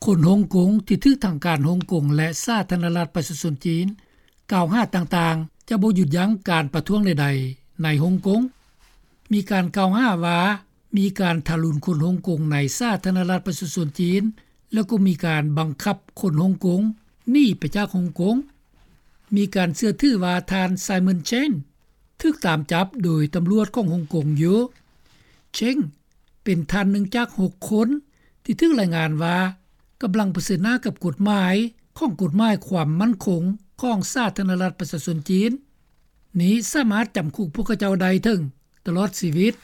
ຄົນຮົງກົງທີ່ຖືກທາງການຮົງກົງ ແລະ ສາທາລະນະລັດປະຊາຊົນຈີນກ່າວຫາຕ່າງໆ ຈະບໍ່ຢຸດຢັ້ງການປະທ້ວງໃດໆໃນຮົງກົງ. ມີການກ່າວຫາວ່າ ມີການທາຣຸນຄົນຮົງກົງໃນສາທາລະນະລັດປະຊາຊົນຈີນ ແລ້ວກໍມີການບັງຄັບຄົນຮົງກົງໜີໄປຈາກຮົງກົງ. ມີການເຊື່ອຖືວ່າທ່ານ Simon Cheng ຖືກຕາມຈັບໂດຍຕຳຫຼວດຂອງຮົງກົງຢູ່. Cheng ເປັນທ່ານໜຶ່ງຈາກຫົກຄົນທີ່ຖືກລາຍງານວ່າກຳລັງປະເຊີນໜ້າກັບກົດໝາຍຂອງກົດໝາຍຄວາມໝັ້ນຄົງຂອງສາທາລະນະລັດປະຊາຊົນຈີນ. ນີ້ສາມາດຈຳຄຸກພວກເຂົາເຈົ້າໄດ້ເຖິງຕະຫຼອດຊີວິດ.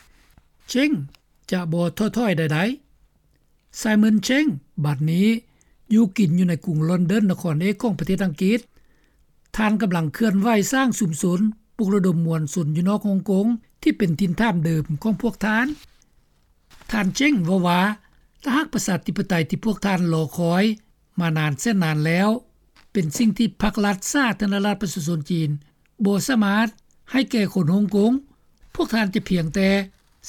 Cheng ຈະບໍ່ທໍ້ຖອຍໃດໆ. Simon Cheng ບັດນີ້ຢູ່ກິນຢູ່ໃນກຸງລອນດອນ ນະຄອນເອກຂອງປະເທດອັງກິດ. ທ່ານກຳລັງເຄື່ອນໄຫວສ້າງຊຸມຊົນ ປຸກລະດົມມວນຊົນຢູ່ນອກຮົງກົງ ທີ່ເປັນຖິ່ນຖານເດີມຂອງພວກທ່ານ. ທ່ານ Cheng ເວົ້າວ່າ ຖ້າຫາກປະຊາທິປະໄຕທີ່ພວກທ່ານລໍຄອຍມານານແສນນານແລ້ວ ເປັນສິ່ງທີ່ພັກລັດສາທາລະນະລັດປະຊາຊົນຈີນບໍ່ສາມາດໃຫ້ແກ່ຄົນຮົງກົງ, ພວກທ່ານຈະພຽງແຕ່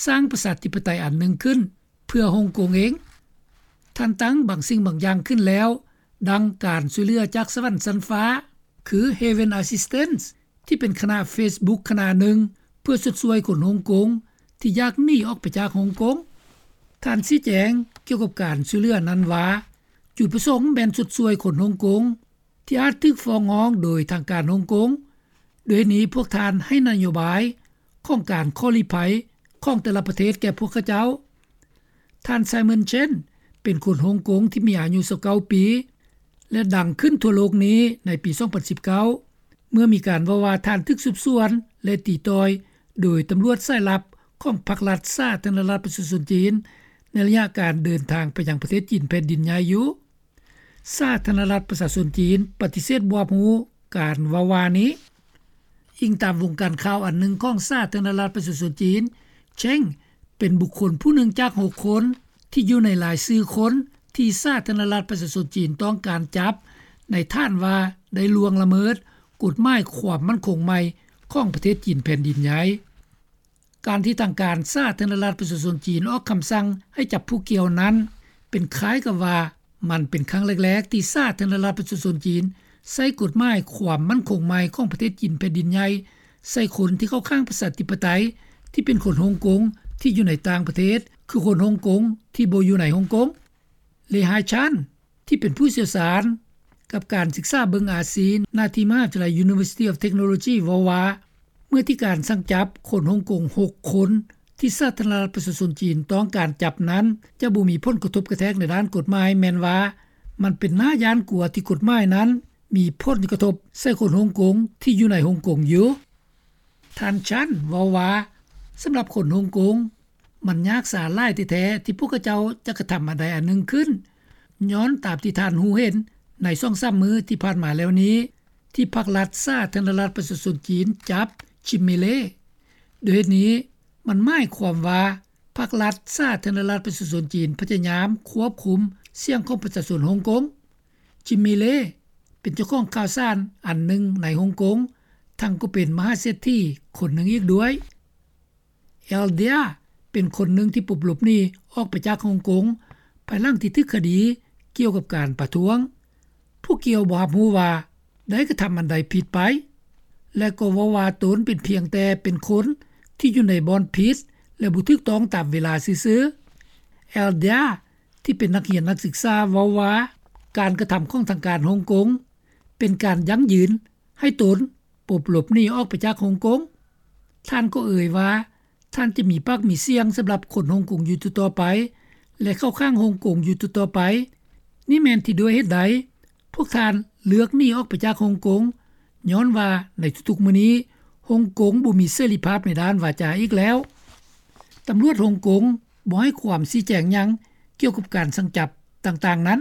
ສ້າງປະຊາທິປະໄຕອັນໜຶ່ງຂຶ້ນເພື່ອຮົງກົງເອງ. ທ່ານຕັ້ງບາງສິ່ງບາງຢ່າງຂຶ້ນແລ້ວ, ດັ່ງການຊ່ວຍເຫຼືອຈາກສະຫວັນຊັ້ນຟ້າ ຄື Heaven Assistance ທີ່ເປັນຄະນະ Facebook ຄະນະໜຶ່ງ ເພື່ອຊົດຊ່ວຍຄົນຮົງກົງທີ່ຢາກໜີອອກໄປຈາກຮົງກົງ. ທ່ານຊີ້ແຈງກ່ຽວກັບການຊ່ວຍເຫຼືອນັ້ນວ່າ ຈຸດປະສົງແມ່ນຊົດຊ່ວຍຄົນຮົງກົງທີ່ອາດຖືກຟ້ອງຮ້ອງໂດຍທາງການຮົງກົງ. ໂດຍເຫດນີ້ພວກທ່ານໃຫ້ນະໂຍບາຍຂອງການຂໍລີ້ໄພຂອງແຕ່ລະປະເທດແກ່ພວກເຂົາເຈົ້າ. ທ່ານ Simon Cheng ເປັນຄົນຮົງກົງທີ່ມີອາຍຸຊາວເກົ້າປີ ແລະ ດັງຂຶ້ນທົ່ວໂລກນີ້ໃນປີສອງພັນສິບເກົ້າ ເມື່ອມີການເວົ້າວ່າທ່ານຖືກສືບສວນ ແລະ ຕີຕ່ອຍໂດຍຕຳຫຼວດສາຍລັບຂອງພັກລັດສາທາລະນະລັດປະຊາຊົນຈີນ ໃນໄລຍະການເດີນທາງໄປຍັງປະເທດຈີນແຜ່ນດິນໃຫຍ່ຢູ່. ສາທາລະນະລັດປະຊາຊົນຈີນປະຕິເສດບໍ່ຮັບຮູ້ການເວົ້າວ່ານີ້. ອີງຕາມວົງການຂ່າວອັນໜຶ່ງຂອງສາທາລະນະລັດປະຊາຊົນຈີນ, Cheng ເປັນບຸກຄົນຜູ້ໜຶ່ງຈາກຫົກຄົນທີ່ຢູ່ໃນລາຍຊື່ຄົນທີ່ສາທາລະນະລັດປະຊາຊົນຈີນຕ້ອງການຈັບ ໃນຖານວ່າໄດ້ລ່ວງລະເມີດກົດໝາຍຄວາມໝັ້ນຄົງໃໝ່ຂອງປະເທດຈີນແຜ່ນດິນໃຫຍ່. ການທີ່ທາງການສາທາລະນະລັດປະຊາຊົນຈີນອອກຄຳສັ່ງໃຫ້ຈັບຜູ້ກ່ຽວນັ້ນ ເປັນຄ້າຍກັບວ່າມັນເປັນຄັ້ງແລກໆທີ່ສາທາລະນະລັດປະຊາຊົນຈີນໃຊ້ກົດໝາຍຄວາມໝັ້ນຄົງໃໝ່ຂອງປະເທດຈີນແຜ່ນດິນໃຫຍ່ ໃສ່ຄົນທີ່ເຂົ້າຂ້າງປະຊາທິປະໄຕ ທີ່ເປັນຄົນຮົງກົງທີ່ຢູ່ໃນຕ່າງປະເທດ ຄືຄົນຮົງກົງທີ່ບໍ່ຢູ່ໃນຮົງກົງ. ເລ ຮາຍຊານ ທີ່ເປັນຜູ້ຊ່ຽວຊານກັບການສຶກສາເບິ່ງອາຊີ ນາທີ່ມະຫາວິທະຍາໄລ University of Technology ເວົ້າວ່າ ເມື່ອທີ່ການສັ່ງຈັບຄົນຮົງກົງຫົກຄົນ ທີ່ສາທາລະນະລັດປະຊາຊົນຈີນຕ້ອງການຈັບນັ້ນ ຈະບໍ່ມີຜົນກະທົບກະແທກໃນດ້ານກົດໝາຍ ແມ່ນວ່າມັນເປັນໜ້າຢ້ານກົວທີ່ກົດໝາຍນັ້ນມີຜົນກະທົບໃສ່ຄົນຮົງກົງທີ່ຢູ່ໃນຮົງກົງຢູ່. ທ່ານ Cheng ເວົ້າວ່າ ສຳລັບຄົນຮົງກົງ ມັນຍາກສາຫຼາຍແທ້ໆ ທີ່ພວກເຂົາເຈົ້າຈະກະທຳອັນໃດອັນໜຶ່ງຂຶ້ນ ຍ້ອນຕາມທີ່ທ່ານຮູ້ເຫັນໃນສອງສາມມື້ທີ່ຜ່ານມາແລ້ວນີ້ ທີ່ພັກລັດສາທາລະນະລັດປະຊາຊົນຈີນຈັບ Jimmy Lai. ໂດຍເຫດນີ້ ມັນໝາຍຄວາມວ່າ ພັກລັດສາທາລະນະລັດປະຊາຊົນຈີນພະຍາຍາມຄວບຄຸມສຽງຂອງປະຊາຊົນຮົງກົງ. Jimmy Lai ເປັນເຈົ້າຂອງຂ່າວສານອັນໜຶ່ງໃນຮົງກົງ ທັງກໍເປັນມະຫາເສດຖີຄົນໜຶ່ງອີກດ້ວຍ. L Dia ເປັນຄົນໜຶ່ງທີ່ປົບຫຼົບໜີອອກໄປຈາກຮົງກົງ ພາຍຫຼັງທີ່ຖືກຄະດີກ່ຽວກັບການປະທ້ວງ. ຜູ້ກ່ຽວບໍ່ຮັບຮູ້ວ່າໄດ້ກະທຳອັນໃດຜິດໄປ ແລະ ກໍເວົ້າວ່າຕົນເປັນພຽງແຕ່ເປັນຄົນທີ່ຢູ່ໃນບ່ອນຜິດ ແລະ ບໍ່ຖືກຕ້ອງຕາມເວລາຊື່ໆ. L Dia ທີ່ເປັນນັກຮຽນນັກສຶກສາເວົ້າວ່າ ການກະທຳຂອງທາງການຮົງກົງ ເປັນການຢັ້ງຢືນໃຫ້ຕົນປົບຫຼົບໜີອອກໄປຈາກຮົງກົງ. ທ່ານກໍເອີ່ຍວ່າ ທ່ານຈະມີປາກມີສຽງສຳລັບຄົນຮົງກົງຢູ່ຕໍ່ໆໄປ ແລະ ເຂົ້າຂ້າງຮົງກົງຢູ່ຕໍ່ໆໄປ. ນີ້ແມ່ນທີ່ດ້ວຍເຫດໃດພວກທ່ານເລືອກໜີອອກໄປຈາກຮົງກົງ, ຍ້ອນວ່າໃນທຸກໆມື້ນີ້ ຮົງກົງບໍ່ມີເສລີພາບໃນດ້ານວາຈາອີກແລ້ວ. ຕຳຫຼວດຮົງກົງບໍ່ໃຫ້ຄວາມຊີ້ແຈງຫຍັງກ່ຽວກັບການສັ່ງຈັບຕ່າງໆນັ້ນ.